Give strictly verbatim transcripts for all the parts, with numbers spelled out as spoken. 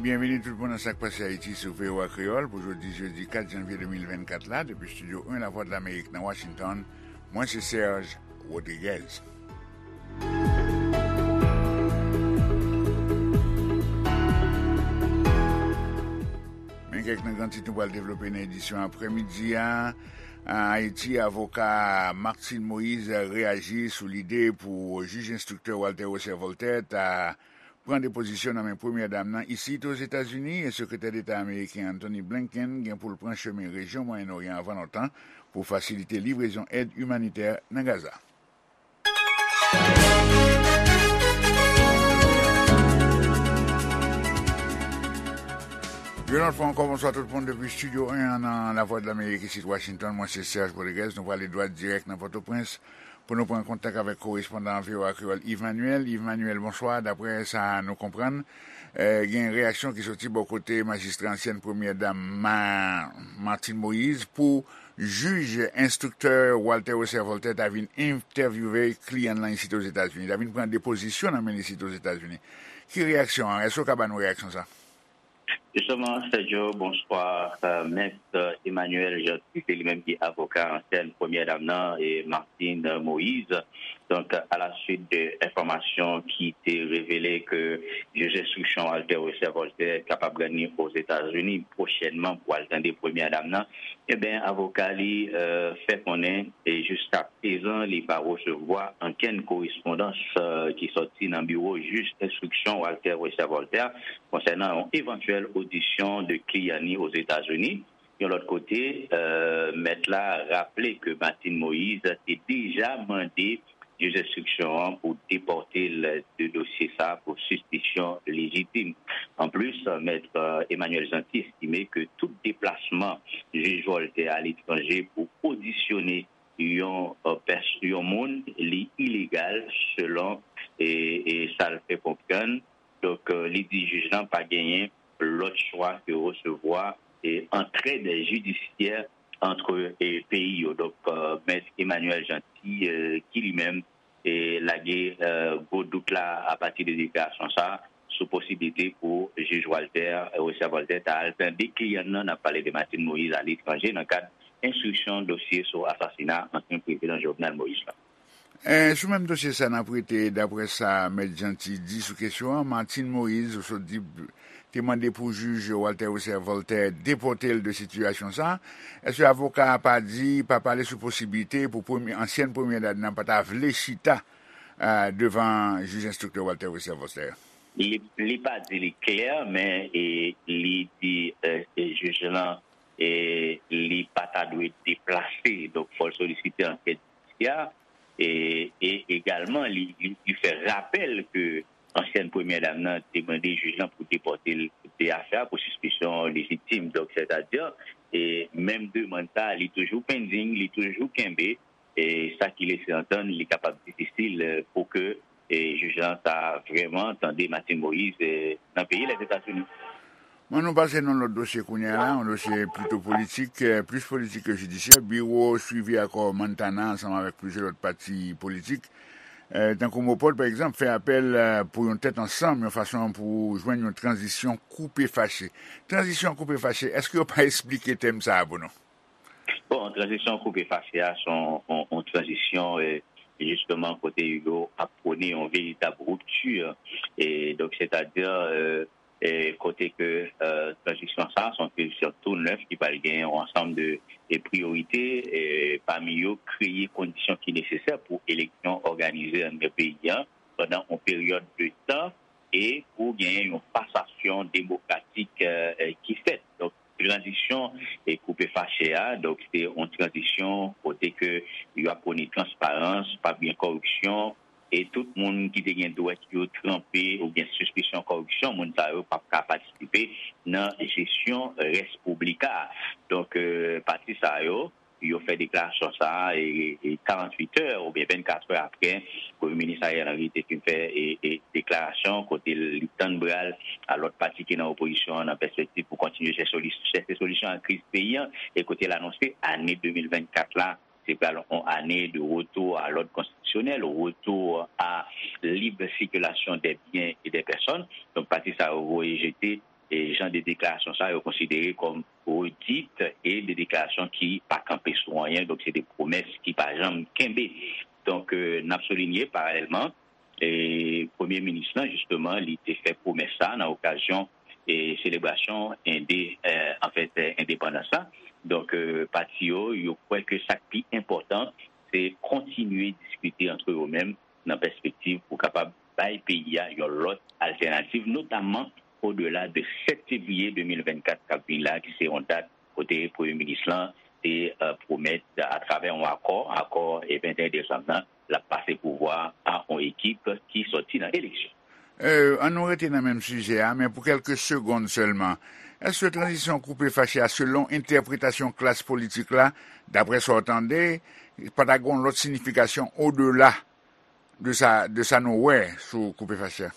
Byenveni tout moun nan Sa k Pase Ayiti sou V O A Kreyòl pou jodi jedi kat janvye de mil vennkat la, depi Estidyo en Lavwadlamerik nan Washington. Mwen se Serge Rodriguez. Men kèk nan gran tit nou pral devlope nan edisyon aprèmidi a. An Ayiti, avoka Martine Moïse reyaji sou lide pou jij enstriktè Walter Wesser Voltaire ta pran depozisyon nan men premyè dam nan isit Ozetazini, e sekretè deta ameriken Antony Blinken gen pou l pran chemen rejyon Mwayen Oryan anvan lontan pou fasilite livrezon èd imanitè nan Gaza. Yon lòt fwa ankò, bonswa tout moun depi Estidyo en an nan Lavwadlamerik isit Washington. Mwen se Serge Rodriguez. Nou prale dwat dirèk nan Pòtoprens pou nou pran kontak avèk korespondan V O A Kreyòl Yves Manuel. Yves Manuel, bonswa. Daprè sa nou konprann, eh, gen reyaksyon ki soti bò kote majistra ansyèn premyè dam Ma-, Martine Moïse pou jij enstriktè Walter Wesser Voltaire ta vin entèvyouve kliyan l lan isit Ozetazini, ta vin pran depozisyon nan men l isit Ozetazini. Ki reyaksyon an? Èske w ka ba nou reyaksyon sa? Jisteman, Sergio, bonswa. Euh, Mèt Emmanuel Jeanty, se li menm ki avoka ansyèn premyè dam nan, e Martine Moïse. Donk, alaswit de enfòmasyon ki te revele ke jij enstriksyon Walter Wesser Voltaire kapab rann li Ozetazini pwochènman pou al tande premyè dam nan, ebyen, avoka li, euh, fè konnen, e jiskaprezan, li pa resevwa ankenn korespondans, euh, ki sòti nan biwo jij enstriksyon Walter Wesser Voltaire konsènan yon evantyèl odisyon de kliyan li Ozetazini. Yon lòt kote, euh, mèt la raple ke Martine Moïse te deja mande jij enstriksyon an pou depòte l de dosye sa a pou sispisyon lejitim. Anplis, mèt, euh, Emmanuel Jeanty estime ke tout deplasman jij Voltaire aletranje pou odisyone yon, euh, pès-, yon moun, li ilegal selon, e, e sa l fè konprann. Donk, euh, li di jij lan pa genyen lòt chwa ke resevwa, e, antrèd jidisyè ant, e, peyi yo. Donk, euh, mèt Emmanuel Jeanty, euh, ki li menm, e, lage, euh, gwo dout la apati de deklarasyon sa a sou posiblite pou jij Walter, euh, Wesser Voltaire ta al tande kliyan nan, n ap pale de Martine Moïse, aletranje nan kad enstriksyon dosye sou asasina ansyen prezidan Jovenel Moïse la. Eh, sou menm dosye sa, n ap rete, daprè sa Mèt Jeanty di sou kesyon an, Martine Moïse, ou sot di, te mande pou jij Walter Wesser Voltaire depòte l de sitiyasyon sa. Èske avoka a pa di, pa pale sou posiblite pou premye, ansyèn premyè dam nan pa ta vle chita, eh, devan jij enstriktè Walter Wesser Voltaire? Li, li pa di li klè, men, e, li di, eh, e, jij lan, e, li pa ta dwe deplase. Donk, fò l solisite ankèt jidisyè. E, e egalman, li, li, li fè rapèl ke ansyèn premyè dam nan te mande jij lan pou depòte l de afè a pou sispisyon lejitim. Donk, sètadi, e, menm demann sa a, li toujou pending, li toujou kenbe, e sa ki lese antann li kapab difisil, e, pou ke, e, jij lan ta vrèman tande Martine Moïse, e, nan peyi Lèzetazini. Bon, nou pase nan lòt dosye kounye a la, yon dosye plito politik, eh, plis politik ke jidisyè. Biwo swivi akò Montana ansanm avèk plizyè lòt pati politik, eh, tankou MOPOD, pa egzanp, fè apèl, eh, pou yon tèt ansanm, yon fason pou jwenn yon tranzisyon koupe fache. Tranzisyon koupe fache, èske yo pa esplike tèm sa a pou nou? Bon, tranzisyon koupe fache a, se yon, yon, yon tranzisyon, eh, jisteman, kote yo ap pwone yon veritab ripti. E donk, sètadi, eh, e kote ke, eh, tranzisyon sa a, se yon tranzisyon tou nèf ki pral gen yon ansanm de, e priyorite, e pami yo, kreye kondisyon ki nesesè pou eleksyon òganize anndan peyi a pandan yon peryòd de tan e pou genyen yon pasasyon demokratik, eh, eh, ki fèt. Donk, tranzisyon e koupe fache a, donk, se yon tranzisyon kote ke y ap pwone transparans, p ap gen kòripsyon, e tout moun ki te gen dwèt yo tranpe oubyen sispisyon kòripsyon, moun sa yo p ap ka patisipe nan jesyon rès piblik la. Donk, eh, pati sa yo, yo fè deklarasyon sa a, e, e karanntuit è oubyen vennkat è aprè Premye Minis Ariel Henry te fin fè, e, e deklarasyon kote li tann bra l a lòt pati ki nan opozisyon an nan pèspektiv pou kontinye chèche soli-, chèche solisyon a kriz peyi a, e kote l anonse ane de mil vennkat la se pral yon ane de retour à l'ordre constitutionnel, retour à libre circulation des biens et des personnes. Donk, pati sa yo voye jete e jan de deklarasyon sa yo konsidere kòm redit e de deklarasyon ki pa kanpe sou anyen, donk se de pwomès ki pa janm kenbe. Donk, euh, n ap soulinye paralèlman, e Premye Minis lan, jisteman, li te fè pwomès sa nan okazyon e selebrasyon ende, euh, anfèt, euh, endepandans la. Donk, euh, pati yo, yo kwè ke sa k pi enpòtan, se kontinye diskite antre yo menm nan pèspektiv pou kapab bay peyi a yon lòt altènativ, notamman odela de sèt fevriye de mil vennkat k ap vin la, ki se yon dat kote Premye Minis lan te, euh, pwomèt atravè yon akò, akò e venteyen desanm nan, l ap pase pouvwa a yon ekip ki sòti nan eleksyon. Euh, ann nou rete nan menm sijè a, men pou kèlke segonn sèlman. Èske tranzisyon koupe fache a, selon entèpretasyon klas politik la, daprè sa w tande, pa ta gen yon lòt siyifikasyon odela de sa, de sa nou wè sou koupe fache a?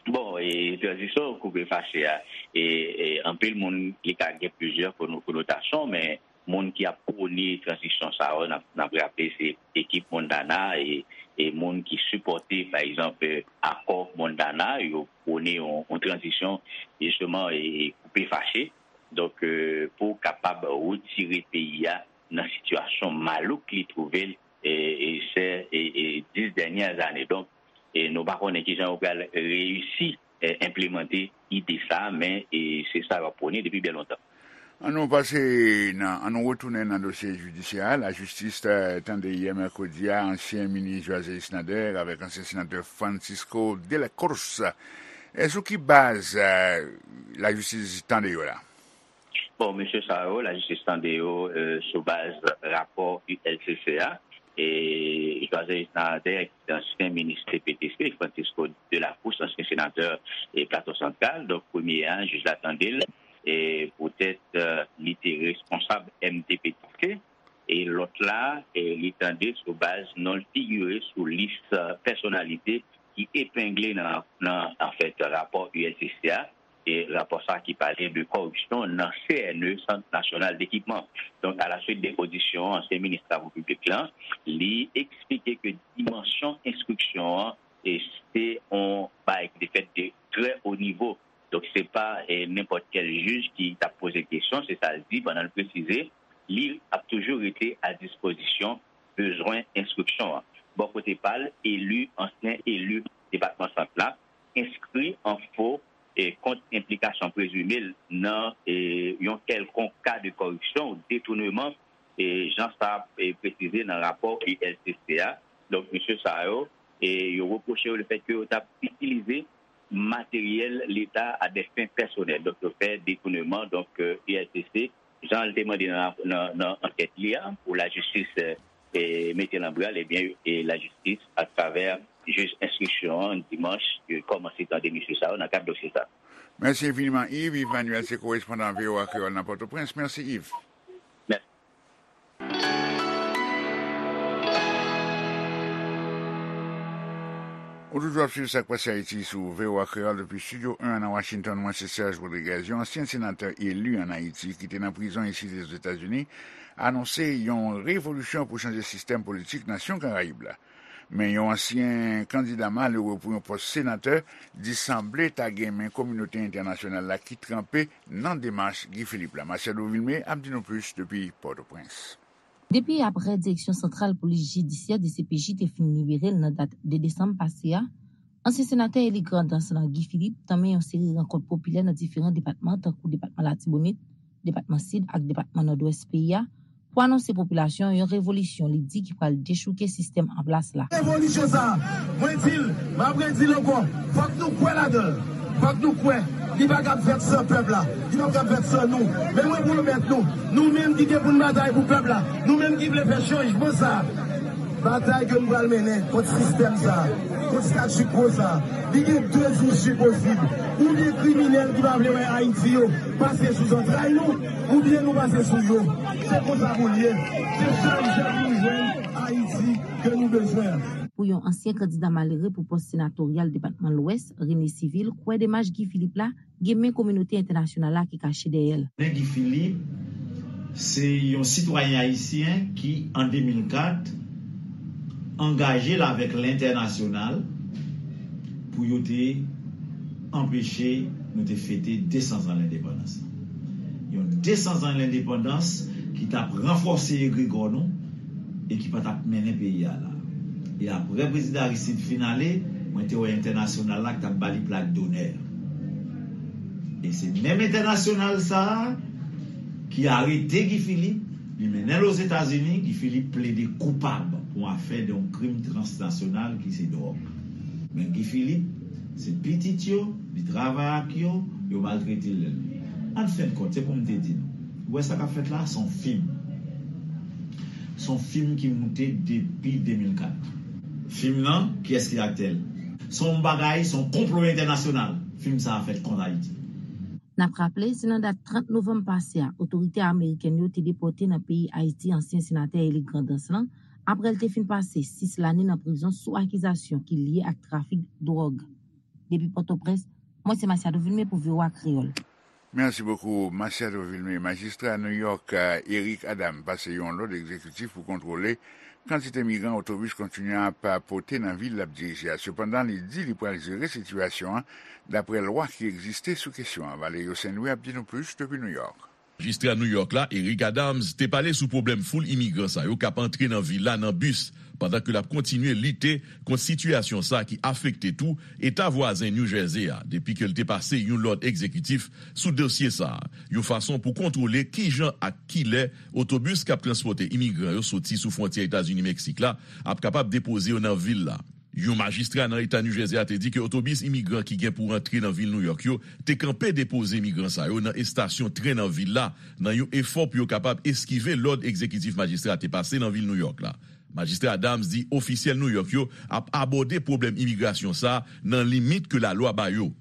Bon, e tranzisyon koupe fache a, e, e anpil moun, li ka gen plizyè kono-, konotasyon, men moun ki ap pwone tranzisyon sa yo, n ap, n ap raple, se ekip Montana e, e moun ki sipòte, pa egzanp, akò Montana, yo pwone yon, yon tranzisyon, jisteman, e, e koupe fache. Donk, euh, pou kapab retire peyi a nan sitiyasyon malouk li twouve l, e, e, sè, e, e, dis dènyè ane. Donk, e nou pa konnen kijan yo pral reyisi, e, enplimante ide sa, men, e, se sa yo ap pwone depi byen lontan. Ann nou pase nan, ann nou retounen nan dosye jidisyè a. Lajistis, eh, tande yè mèkredi a ansyen minis Joiselle Nader avèk ansyen senatè Francisco de la Cruz. E sou ki baz, eh, lajistis tande yo la? Bon, mesye sa yo, lajistis tande yo, eh, sou baz rapò U L C C a. E Joiselle Nader, ki se ansyen minis T P T C, Francisco de la Cruz, ansyen senatè e Plato Santral, donk premye a, jij la tande l, e poutèt, eh, li te responsab M T P T C, e lòt la, e li tande sou baz non l figire sou lis, eh, pèsonalite ki epengle nan, nan, anfèt, rapò U L C C a, e rapò sa ki pale de kòripsyon nan C N E, Sant Nasyonal Dekipman. Donk, alaswit de odisyon ansyen minis Travo Piblik lan, li eksplike ke dimansyon enstriksyon an, e se yon bagay ki te fèt de trè wo nivo. Donk, se pa, e, nenpòt kèl jij ki t ap poze kesyon, se sa l di, pandan l presize, li ap toujou rete a dispozisyon bezwen enstriksyon an. Bò kote pa l, eli, ansyen eli depatman Sant la, enskri an fo, e, kont enplikasyon prezime l nan, e, yon kèlkonk ka de kòripsyon ou detouneman, e, jan sa, e, presize nan rapò U L C C a. Donk, mesye sa yo, e, yo repwoche yo lefètke yo t ap itilize materyèl Leta a des fins personnelles. Donk, yo fè detouneman. Donk, e, U L C C, jan l te mande nan, nan, nan ankèt li a, pou lajistis, e, e, mete l an bral, ebyen, e, lajistis, atravè jij enstriksyon an, dimanch, yo kòmanse tande mesye sa yo nan kad dosye sa. Mèsi enfiniman, Yves. Yves Manuel se korespondan V O A Kreyòl nan Pòtoprens. Mèsi, Yves. Mèsi. Ou toujou ap swiv Sa k Pase Ayiti sou V O A Kreyòl depi Estidyo en nan Washington. Mwen se Serge Rodriguez. Yon ansyen senatè eli ann Ayiti ki te nan prizon isit Ozetazini anonse yon revolisyon pou chanje sistèm politik nasyon Karayib la. Men yon ansyen kandida malere pou yon pòs senatè di sanble ta gen men kominote entènasyonal la ki tranpe nan demach Guy Philippe la. Marcelo Vilmé ap di nou plis depi Pòtoprens. Depi aprè Direksyon Santral Polis Jidisyè, D C P J, te fin libere l nan dat de desanm pase a, ansyen senatè eli Grandans lan, Guy Philippe, tanmen yon seri rankont popilè nan diferan depatman, tankou depatman Latibonit, depatman Sid ak depatman Nòdwès peyi a, pou anonse popilasyon yon revolisyon li di ki pral dechouke sistèm an plas la. Revolisyon sa a, mwen di l, m ap redi l ankò, fòk nou kwè ladan l. Fòk nou kwè, li pa kab fèt san pèp la, li pa kab fèt san nou. Men mwen pwomèt nou, nou menm ki gen pou n batay pou pèp la, nou menm ki vle fè chanjman sa a, batay ke nou pral mennen kont sistèm sa a, kont statu quo sa a, li gen de isi posib. Oubyen kriminèl ki pa vle wè Ayiti yo pase sou zantray nou, oubyen nou pase sou yo. Se konsa pou l ye. Se sèl jan pou nou jwenn Ayiti ke nou bezwen an. Pou yon ansyen kandida malere pou pòs senatoryal depatman Lwès, René Civil, kwè demach Guy Philippe la gen men kominote entènasyonal la ki kache dèyè l. René Guy Philippe se yon sitwayen ayisyen ki, an de mil kat, angaje l avèk lentènasyonal pou yo te anpeche Nou te fete de san zan lendepandans lan. Yon de san zan lendepandans ki t ap ranfòse egregò nou e ki pa t ap mennen peyi a la. E apre Prezidan Aristide fin ale, mwen te wè entènasyonal la ki t ap ba li plak donè. E se menm entènasyonal sa a ki arete Guy Philippe, li mennen l Ozetazini, Guy Philippe plede koupab pou afè de yon krim transnasyonal ki se dwòg. Men Guy Philippe, se pitit yo, li travay ak yo, yo maltrete l. An fen de kont, se pou m te di nou, ou wè sa k ap fèt la, se yon fim. Se yon fim ki moute depi de mil kat. Fim nan, kiyès ki aktè l? Se yon bagay, se yon konplo entènasyonal. Fim sa a fèt kont Ayiti. N ap raple, se nan dat trant novanm pase a, otorite amerikèn yo te depòte nan peyi Ayiti ansyen senatè Eric Grandens lan, apre l te fin pase sis lane nan prizon sou akizasyon ki lye ak trafik dwòg. Depi Pòtoprens, mwen se Masiado Vilmé pou V O A Kreyòl. Merci beaucoup, Masiado Vilmé. Majistra New York, Eric Adams, pase yon lòd egzekitif pou kontwole kantite migran otobis kontinye ap pote nan vil l ap dirije a. Sepandan, li di li pral jere sitiyasyon an daprè lwa ki egziste sou kesyon an. Valerio Saint Louis ap di nou plis depi New York. Majistra New York la, Eric Adams, te pale sou pwoblèm foul imigran sa yo k ap antre nan vil la nan bis, pandan ke l ap kontinye lite kont sitiyasyon sa ki afekte tou eta vwazen New Jersey a, depi ke l te pase yon lòd egzekitif sou dosye sa a, yon fason pou kontwole kijan ak kilè otobis k ap transpòte imigran yo soti sou fwontyè Etazini-Meksik la ap kapab depoze yo nan vil la. Yon majistra nan eta New Jersey a te di ke otobis imigran ki gen pou rantre nan vil New York yo te kanpe depoze imigran sa yo nan estasyon tren nan vil la, nan yon efò pou yo kapab eskive lòd egzekitif majistra a te pase nan vil New York la. Majistra Adams di ofisyèl New York yo ap abòde pwoblèm imigrasyon sa a nan limit ke lalwa ba yo.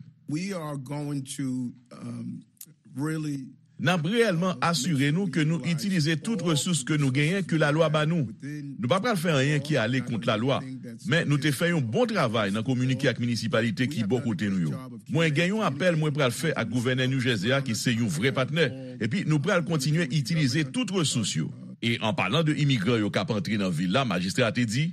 N ap reyèlman asire nou ke nou itilize tout resous ke nou genyen ke lalwa ba nou. Nou pa pral fè anyen ki ale kont lalwa, men nou te fè yon bon travay nan kominike ak minisipalite ki bò kote nou yo. Mwen gen yon apèl mwen pral fè ak gouvènè New Jersey a ki se yon vrè patnè, epi nou pral kontinye itilize tout resous yo. E an palan de imigran yo k ap antre nan vil la, majistra a te di,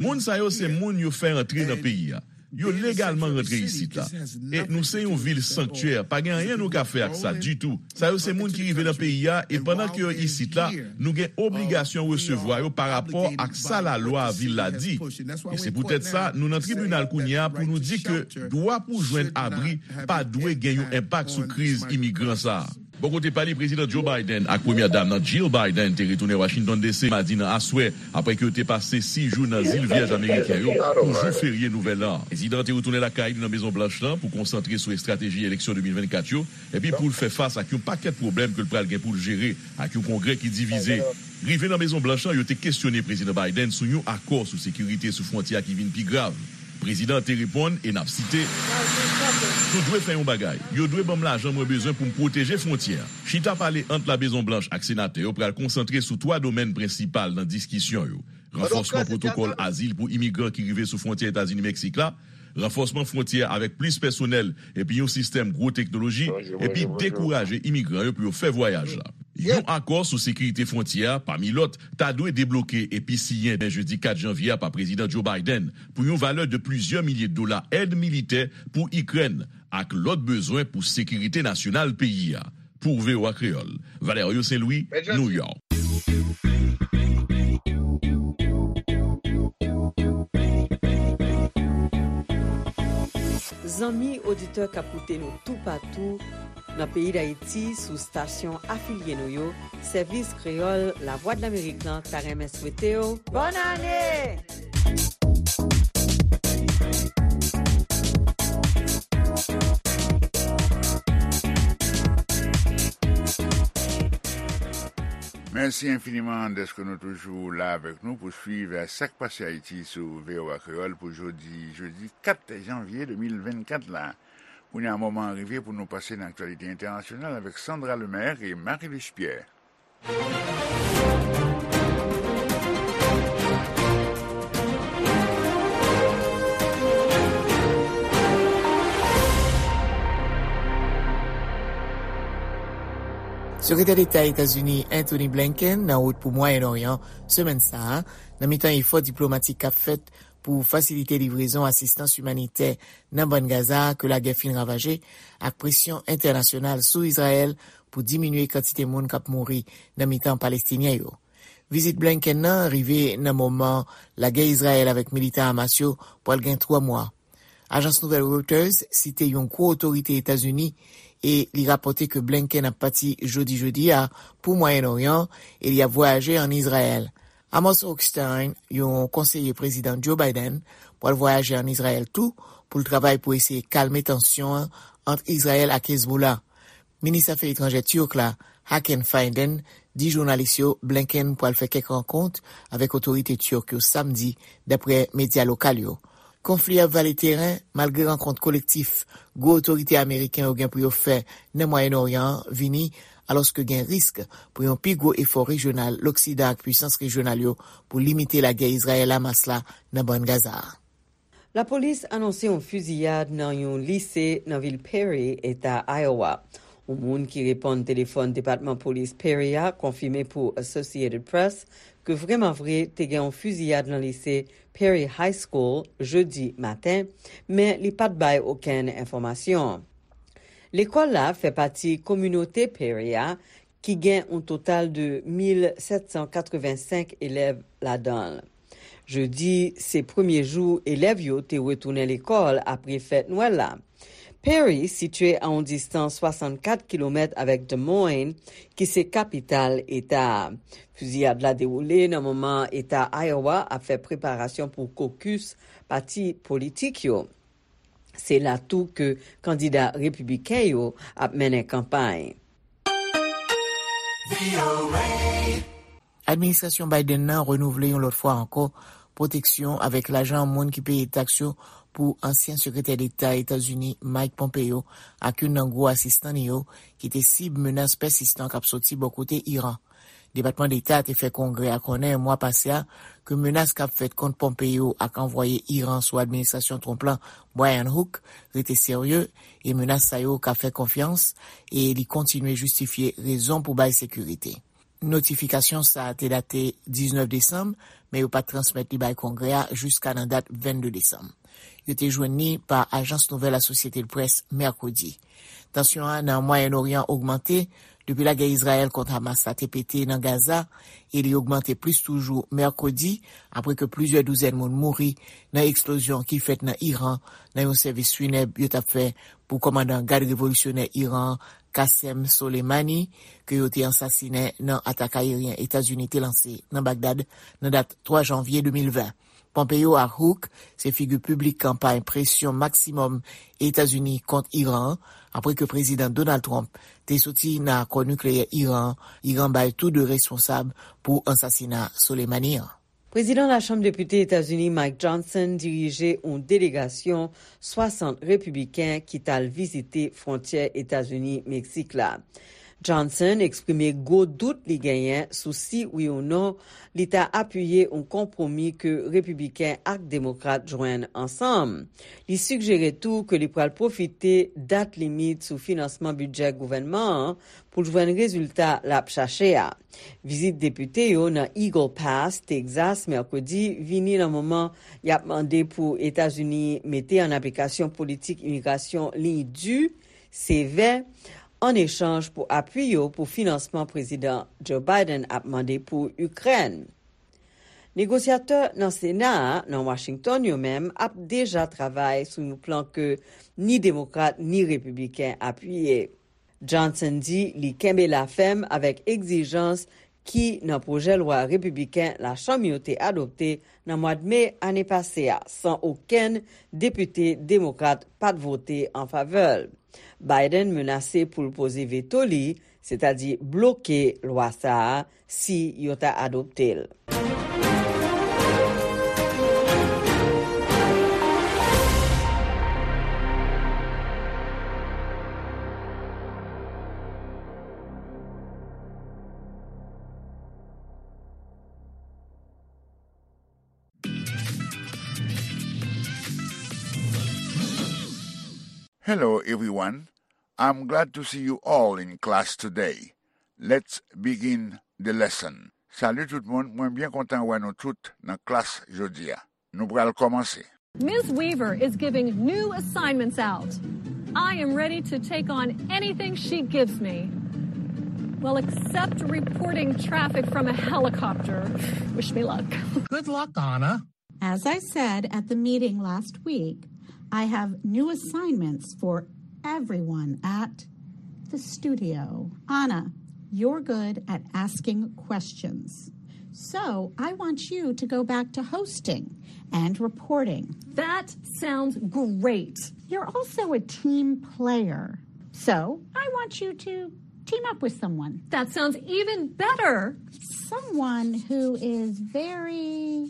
Moun sa yo se moun yo fè antre nan peyi a. Yo legalman rantre isit la. E nou se yon vil sanktyè, pa gen anyen nou ka fè ak sa ditou. Sa yo se moun ki rive nan peyi a e pandan ke yo isit la, nou gen obligasyon resevwa yo pa rapò ak sa lalwa vil la di. E se poutèt sa nou nan tribinal kounye a pou nou di ke dwa pou jwenn abri pa dwe gen yon enpak sou kriz imigran sa a. Bò kote pa li, Prezidan Joe Biden ak Premyè Dam nan Jill Biden te retounen Washington D C madi nan aswè, apre ke yo te pase sis jou nan Zil Vyèj Ameriken yo pou jou ferye Nouvèl An. Prezidan an te retounen lakay li nan Mezon Blanch lan pou konsantre sou estrateji eleksyon de mil vennkat yo, epi pou l fè fas ak yon pakèt pwoblèm ke l pral gen pou l jere ak yon Kongrè ki divize. Rive nan Mezon Blanch lan, yo te kesyone Prezidan Biden sou yon akò sou sekirite sou fwontyè a ki vin pi grav. Prezidan an te reponn, e n ap site, Nou dwe fè yon bagay. Yo dwe ban m lajan mwen bezwen pou m pwoteje fwontyè a. Chita pale ant La Mezon Blanch ak senatè yo pral konsantre sou twa domèn prensipal nan diskisyon yo: ranfòsman pwotokòl azil pou imigran ki rive sou fwontyè Etazini-Meksik la, ranfòsman fwontyè a avèk plis pèsonèl epi yon sistèm gwo teknoloji, epi dekouraje imigran yo pou yo fè vwayaj la. Yon akò sou sekirite fwontyè a, pami lòt, ta dwe debloke epi siyen demen jedi kat janvye a pa Prezidan Joe Biden pou yon valè de plizyè milye dola èd militè pou Ikrèn ak lòt bezwen pou sekirite nasyonal peyi a. Pou V O A Kreyòl, Valerio Saint Louis, New York. Zanmi oditè k ap koute nou toupatou nan peyi Dayiti sou estasyon afilye nou yo, Sèvis Kreyòl Lavwadlamerik lan ta renmen swete w bòn ane! Mèsi enfiniman dèske nou toujou la avèk nou pou swiv Sa k Pase Ayiti sou V O A Kreyòl pou jodi, jedi kat janvye de mil vennkat la. Kounye a, moman an rive pou nou pase nan aktyalite entènasyonal avèk Sandra Lemaire e Marie-Luce Pierre. Sekretè Deta Etazini Antony Blinken nan wout pou Mwayen Oryan semèn sa a, nan mitan efò diplomatik k ap fèt pou fasilite livrezon asistans imanitè nan Bann Gaza ke lagè fin ravaje, ak presyon entènasyonal sou Izrayèl pou diminye kantite moun k ap mouri nan mitan Palestinyen yo. Vizit Blinken nan rive nan moman lagè Izrayèl avèk militan Hamas yo pral gen twa mwa. Ajans nouvèl Reuters site yon gwo otorite Etazini e li rapòte ke Blinken ap pati jodi jedi a pou Mwayen Oryan e li ap vwayaje ann Izrayèl. Amos Hochstein, yon konseye Prezidan Joe Biden, pral vwayaje ann Izrayèl tou pou l travay pou eseye kalme tansyon an ant Izrayèl ak Hezbollah. Minis afè etranjè Tirk la, Hakan Fidan, di jounalis yo Blinken pral fè kèk rankont avèk otorite Tirk yo Samdi, daprè medya lokal yo. Konfli a vale teren malgre rankont kolektif gwo otorite ameriken yo gen pou yo fè nan Mwayen Oryan an vini, alòske gen risk pou yon pi gwo efò rejyonal Loksidan ak pisans rejyonal yo pou limite lagè Izrayèl-Hamas la nan Bann Gaza a. Lapolis anonse yon fiziyad nan yon lise nan vil Perry, eta Iowa. Yon moun ki reponn telefòn Depatman Polis Perry a konfime pou Associated Press ke vrèman vre te gen yon fiziyad nan lise Perry High School jedi maten, men li pa t bay okenn enfòmasyon. Lekòl la fè pati kominote Perry a, ki gen yon total de mil sèt san katrevensenk elèv ladan l. Jedi, se premye jou elèv yo te retounen lekòl apre fèt Nwèl la. Perry sitye a yon distans swasannkat kilomèt avèk Des Moines, ki se kapital eta a. Fiziyad la dewoule nan moman eta Iowa ap fè preparasyon pou kokis pati politik yo. Se la tou ke kandida repibliken yo ap mennen kanpay. Administrasyon Biden nan renouvle yon lòt fwa ankò pwoteksyon avèk lajan moun ki peye taks yo pou ansyen sekretè deta Etazini Mike Pompeo ak youn nan gwo asistan li yo ki te sib menas pèsistan k ap soti bò kote Iran. Depatman Deta te fè Kongrè a konnen mwa pase a ke menas k ap fèt kont Pompeo ak anvwaye Iran sou administrasyon Trump lan, Brian Hook, rete serye e menas sa yo ka fè konfyans e li kontinye jistifye rezon pou bay sekirite. Notifikasyon sa a te date diznèf desanm, men yo pa t transmèt li bay Kongrè a jiska nan dat vennde desanm. Yo te jwenn li pa ajans nouvèl Associated Press mèkredi. Tansyon an nan Mwayen Oryan ogmante depi lagè Izrayèl kont Hamas la te pete nan Gaza e li ogmante plis toujou mèkredi apre ke plizyè douzèn moun mouri nan eksplozyon ki fèt nan Iran nan yon sèvis finèb yo t ap fè pou kòmandan gad revolisyonè Iran an Qasem Soleimani ke yo te ansasinen nan atak ayeryen Etazini te lanse nan Bagdad nan dat twa janvye de mil ven. Pompeo ak Hook se figi piblik kanpay presyon maksimòm Etazini kont Iran an, apre ke Prezidan Donald Trump te soti nan akò nikleyè Iran an, Iran bay tou de responsab pou ansasina Soleimani an. Prezidan Lachanm Depite Etazini Mike Johnson dirije yon delegasyon swasant repibliken ki t al vizite fwontyè Etazini-Meksik la. Johnson eksprime gwo dout li genyen sou si wi ou non li ta apiye yon konpwomi ke repibliken ak demokrat jwenn ansanm. Li sigjere tou ke li pral pwofite dat limit sou finansman bidjè gouvènman an pou l jwenn rezilta l ap chache a. Vizit depite yo nan Eagle Pass, Texas, mèkredi, vini nan moman y ap mande pou Etazini mete an aplikasyon politik imigrasyon liy di, sevè, an echanj pou apui yo pou finansman Prezidan Joe Biden ap mande pou Ikrèn. Negosyatè nan Sena a, nan Washington, yo menm ap deja travay sou yon plan ke ni demokrat ni repibliken apiye. Johnson di li kenbe la fèm avèk egzijans ki nan pwojè lwa repibliken Lachanm yo te adopte nan mwad me ane pase a, san okenn depite demokrat pa t vote an favè l. Biden menase pou l poze veto li, sètadi bloke lwa sa a, si yo ta adopte l. Hello, everyone. I'm glad to see you all in class today. Let's begin the lesson. Salut tout moun, mwen byen kontan wè nou tout nan klas jodi a. Nou pral kòmanse. Miz Weaver is giving new assignments out. I am ready to take on anything she gives me. Well, except reporting traffic from a helicopter. Wish me luck. Good luck, Anna. As I said at the meeting last week, I have new assignments for everyone at the studio. Anna, you're good at asking questions. So I want you to go back to hosting and reporting. That sounds great. You're also a team player. So I want you to team up with someone. That sounds even better. Someone who is very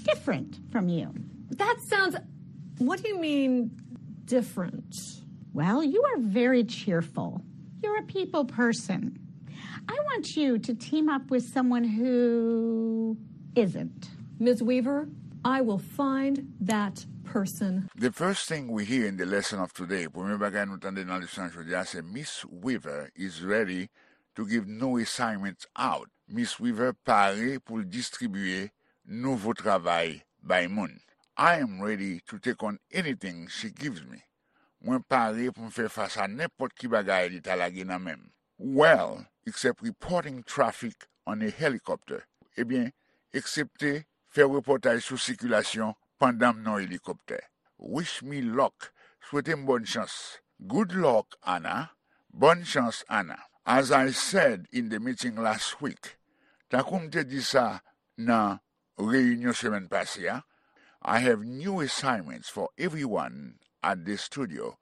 different from you. That sounds. What do you mean, different? Well, you are very cheerful. You're a people person. I want you to team up with someone who isn't. Miz Weaver, I will find that person. The first thing we hear in the lesson of today, premye bagay nou tande nan leson jodi a, se Miss Weaver is ready to give new assignments out. Miss Weaver pare pou l distribiye nouvo travay bay moun. I am ready to take on anything she gives me. Mwen pare pou m fè fas a nenpòt ki bagay li ta lage nan men m. Well, except reporting traffic on a helicopter. Ebyen, eksepte fè repòtaj sou sikilasyon pandan m nan helikoptè. Wish me luck. Swete m bòn chans. Good luck, Anna. Bòn chans, Anna. As I said in the meeting last week, tankou m te di sa nan reyinyon semèn pase a, I have new assignments for everyone at the studio.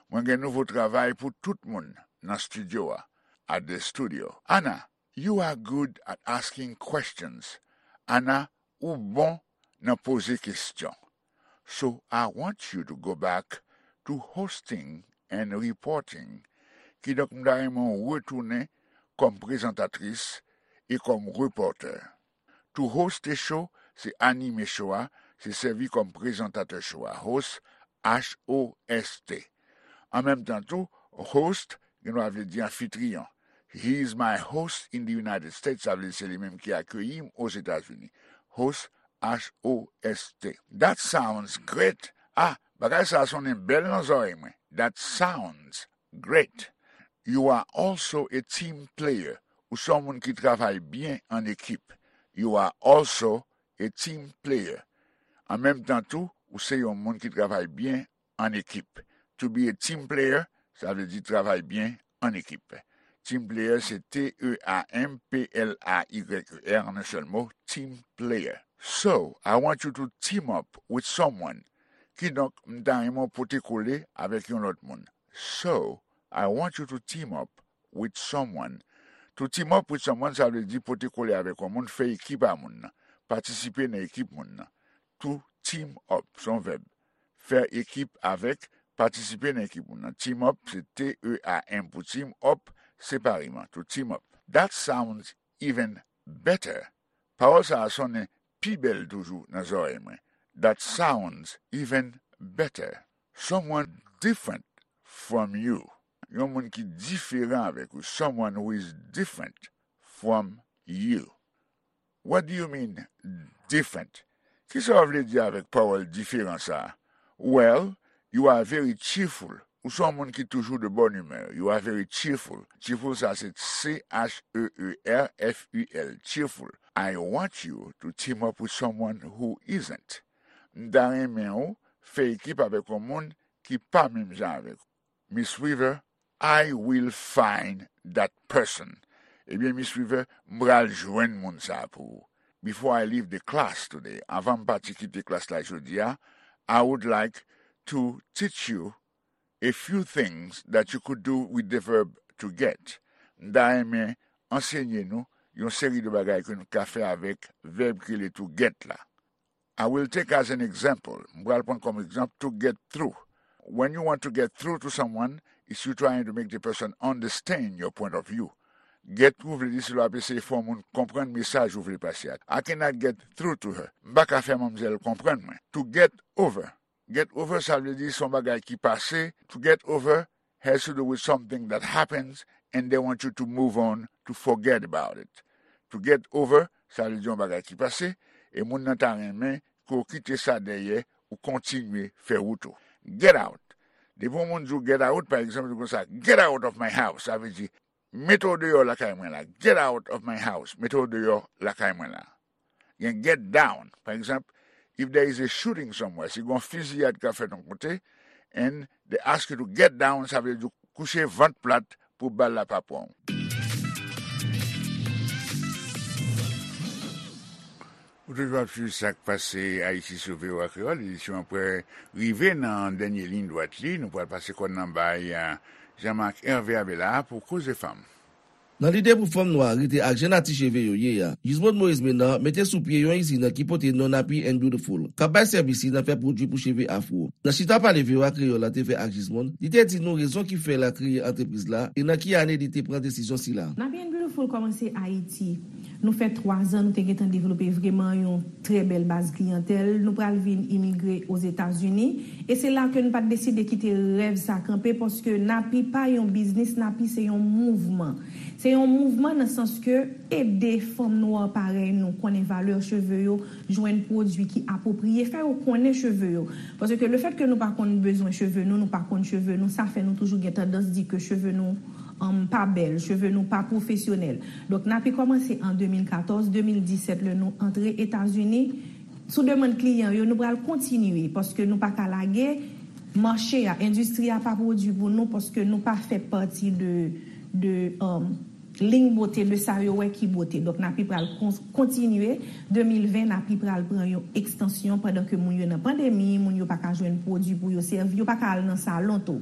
Mwen gen nouvo travay pou tout moun nan estidyo a. At the studio. Anna, you are good at asking questions. Anna, ou bon nan poze kesyon. So I want you to go back to hosting and reporting. Kidonk, m ta renmen w retounen kòm prezantatris e kòm repòtè. To host a show, se anime show a, se sèvi kòm prezantatè show a. Host, H O S T. An menm tan tou, host, gen dwa vle di anfitriyon. He is my host in the United States, sa vle di se li menm ki akeyi m Ozetazini. Host, H O S T. That sounds great. Ah, bagay sa a sonnen bèl nan zòrèy mwen. That sounds great. You are also a team player. Ou se yon moun ki travay byen an ekip. You are also a team player. An menm tan tou, ou se yon moun ki travay byen an ekip. To be a team player, sa vle di travay byen an ekip. Team player, se T E A M P L A Y E R, an yon sèl mo, team player. So, I want you to team up with someone. Kidonk, m ta renmen w pote kole avèk yon lòt moun. So, I want you to team up with someone. To team up with someone, sa vle di pote kole avèk yon moun, fè ekip a moun nan, patisipe nan ekip moun nan. To team up, se yon vèb. Fè ekip avèk, patisipe nan ekip moun nan. Team up, se T E A M pou team, up, separeman. To team up. That sounds even better. Pawòl sa a sonnen pi bèl toujou nan zòrèy mwen. That sounds even better. Someone different from you. Yon moun ki diferan avèk ou. Someone who is different from you. What do you mean, different? Kisa w vle di avèk pawòl diferan sa a? Well, you are very cheerful. Ou se yon moun ki toujou de bonne humeur. You are very cheerful. Cheerful, sa se C H E E R F U L, cheerful. I want you to team up with someone who isn't. M ta renmen w fè ekip avèk yon moun ki pa menm jan avèk ou. Miss Weaver, I will find that person. Ebyen, Miss Weaver, m pral jwenn moun sa a pou ou. Before I leave the class today, anvan m pati kite klas la jodi a, I would like to teach you a few things that you could do with the verb to get. M ta renmen ansenye nou yon seri de bagay ke nou ka fè avèk vèb ki rele to get la. I will take as an example, m pral pran kòm egzanp, to get through. When you want to get through to someone, it's you trying to make the person understand your point of view. Get through vle di si l ap eseye fè yon moun konprann mesaj ou vle pase a. I cannot get through to her. M pa ka fè manmzèl konprann mwen. To get over. Get over, sa vle di se yon bagay ki pase. To get over has to do with something that happens and they want you to move on, to forget about it. To get over, sa vle di yon bagay ki pase, e moun nan ta renmen ke w kite sa dèyè, ou kontinye fè wout ou. Get out. Depi yon moun di w get out, pa egzanp, li konsa, "Get out of my house." Sa vle di, "Mete w deyò lakay mwen la." "Get out of my house." Mete w deyò lakay mwen la. Gen get down. Pa egzanp, if there is a shooting somewhere, si gen yon fiziyad k ap fèt yon kote, and they ask you to get down, sa vle di kouche vant plat pou bal la pa pran w. Ou toujou ap swiv sa k pase Ayiti sou V O A Kreyòl. Edisyon an prè rive nan dènye liy dwat li. Nou pral pase kòn nan bay, eh, Jean-Marc Hervé Abela pou Koze Fanm. Nan lide pou fanm nwa rete ak jan nati cheve yo ye a, Gismonde Moïse Ménard mete sou pye yon izin ki pote non Nappy and Beautiful, k ap bay sèvis li nan fè pwodui pou cheve afwo. Nan chita pale V O A Kreyòl la te fè ak Gismonde, li te di nou rezon ki fè l a kreye antrepriz la e nan ki ane li te pran desizyon sila. Nappy and Beautiful kòmanse Ayiti. Nou fè twa zan, nou te gentan devlope vreman yon trè bèl baz kliyantèl. Nou pral vin imigre Ozetazini. E se la ke nou pa t deside kite rèv sa kanpe, paske Nappy pa yon biznis, Nappy se yon mouvman. Se yon mouvman nan sans ke ede fanm nwa parèy nou konnen valè cheve yo, jwenn pwodui ki apwopriye, fè yo konnen cheve yo. Paske le fèt ke nou pa konn bezwen cheve nou, nou pa konn cheve nou, sa fè nou toujou gen tandans di ke cheve nou, um, pa bèl, cheve nou pa pwofesyonèl. Donk, Nappy kòmanse an de mil katòz, de mil disèt, lè nou antre Etazini, sou demann kliyan yo, nou pral kontinye, paske nou pa ka lage mache a, endistri a pa pwodui pou nou, paske nou pa fè pati de, de, um, liy bote de sa yo wè ki bote. Donk, Nappy pral kon-, kontinye. De mil ven, Nappy pral pran yon ekstansyon pandan ke moun yo nan pandemi, moun yo pa ka jwenn pwodui pou yo sèvi, yo pa ka al nan salon tou.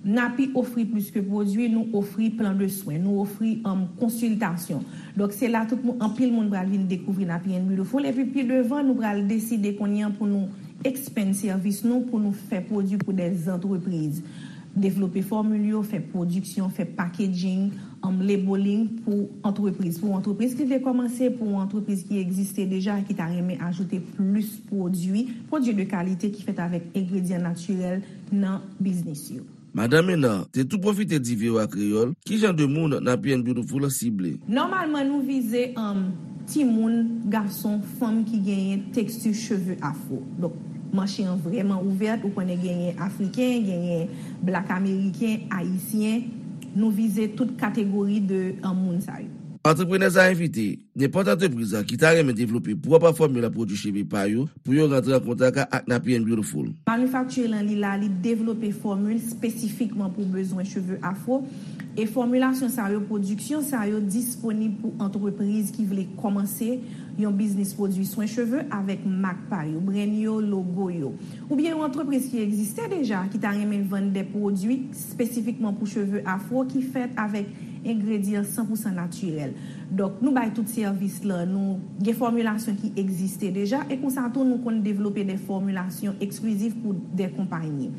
Nappy ofri plis ke pwodui, nou ofri plan de swen, nou ofri, um, konsiltasyon. Donk, se la tout moun, anpil moun pral vin dekouvri Nappy and Beautiful. Epi pi devan, nou pral deside kounye a pou nou expand sèvis nou, pou nou fè pwodui pou dè antrepriz. Devlope fòmil yo, fè pwodiksyon, fè packaging, um, labeling pou antrepriz. Pou antrepriz ki vle kòmanse, pou antrepriz ki egziste deja, ki ta renmen ajoute plis pwodui, pwodui de kalite ki fèt avèk engredyan natirèl nan biznis yo. Madan Ménard te tou pwofite di V O A Kreyòl ki jan de moun Nappy and Beautiful sible. Nòmalman, nou vize, um, timoun, gason, fanm ki genyen teksti cheve afwo. Donk, mache an vrèman ouvèt, ou konnen genyen Afriken, genyen Black Ameriken, Ayisyen. Nou vize tout kategori de, um, moun sa yo. Antreprenè sa a envite nenpòt antrepriz ki ta renmen devlope pwòp fòmil pwodui cheve pa yo pou yo rantre an kontak ak Nappy and Beautiful. Manufacture lan li la, li devlope fòmil espesifikman pou bezwen cheve afwo. E fòmilasyon sa yo, pwodiksyon sa yo disponib pou antrepriz ki vle kòmanse yon biznis pwodui swen cheve avèk mak pa yo, brand yo, logo yo. Oubyen yon antrepriz ki egziste deja, ki ta renmen vann de pwodui espesifikman pou cheve afwo ki fèt avèk engredyan san pou san natirèl. Donk, nou bay tout sèvis lan, nou gen fòmilasyon ki egziste deja, e konsa tou nou konn devlope de fòmilasyon eksklizif pou de konpayi.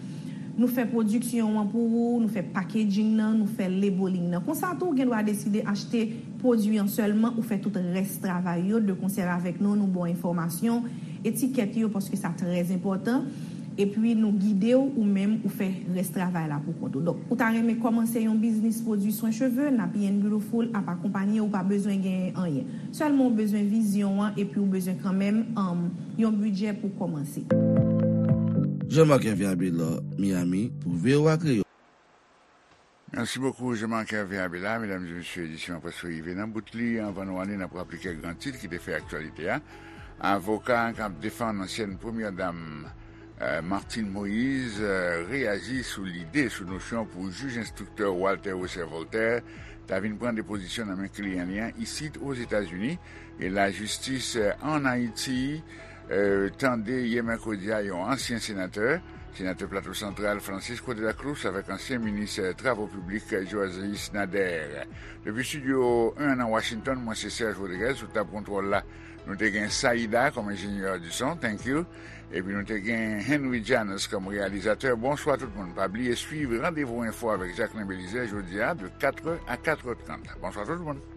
Nou fè pwodiksyon an pou ou, nou fè packaging nan, nou fè labeling nan. Konsa tou, ou gen dwa deside achte pwodui an sèlman, ou fè tout rès travay yo, de konsè avèk nou, nou ba w enfòmasyon, etikèt yo, paske sa trè enpòtan. Epi nou gide w, ou menm, ou fè rès travay la pou kont ou. Donk, ou ta renmen kòmanse yon biznis pwodui swen cheve, Nappy and Beautiful ap akonpanye w, ou pa bezwen genyen anyen. Sèlman ou bezwen vizyon an, epi ou bezwen kanmenm, um, yon bidjè pou kòmanse. Jean-Marc Hervé Abelard, Miami, pou V O A Kreyòl. Merci beaucoup, Jean-Marc Hervé Abela. Medam e mesye, edisyon an prèske rive nan bout li. Anvan nou ale, n ap raple kèk gran tit ki te fè aktyalite a. Avoka k ap defann ansyèn premyè dam, eh, Martine Moïse, eh, reyaji sou lide, sou nosyon pou jij enstriktè Walter Wesser Voltaire ta vin pran depozisyon nan men kliyan li an isit Ozetazini. E lajistis, eh, ann Ayiti, eh, tande yè mèkredi a yon ansyen senatè, senatè Plato Santral, Francisco de la Cruz, avèk ansyen minis, eh, travo piblik, eh, Joasis Nader. Depi estidyo en nan Washington, mwen se Serge Rodriguez, sou tab kontwòl la, nou te gen Saida kòm enjenyè di son, thank you. Epi nou te gen Henry Janus kòm reyalizatè. Bonswa tout moun. Pa bliye swiv Randevou Enfo avèk Jacquelin Belizaire jodi a de katrè a katrè trant. Bonswa tout moun.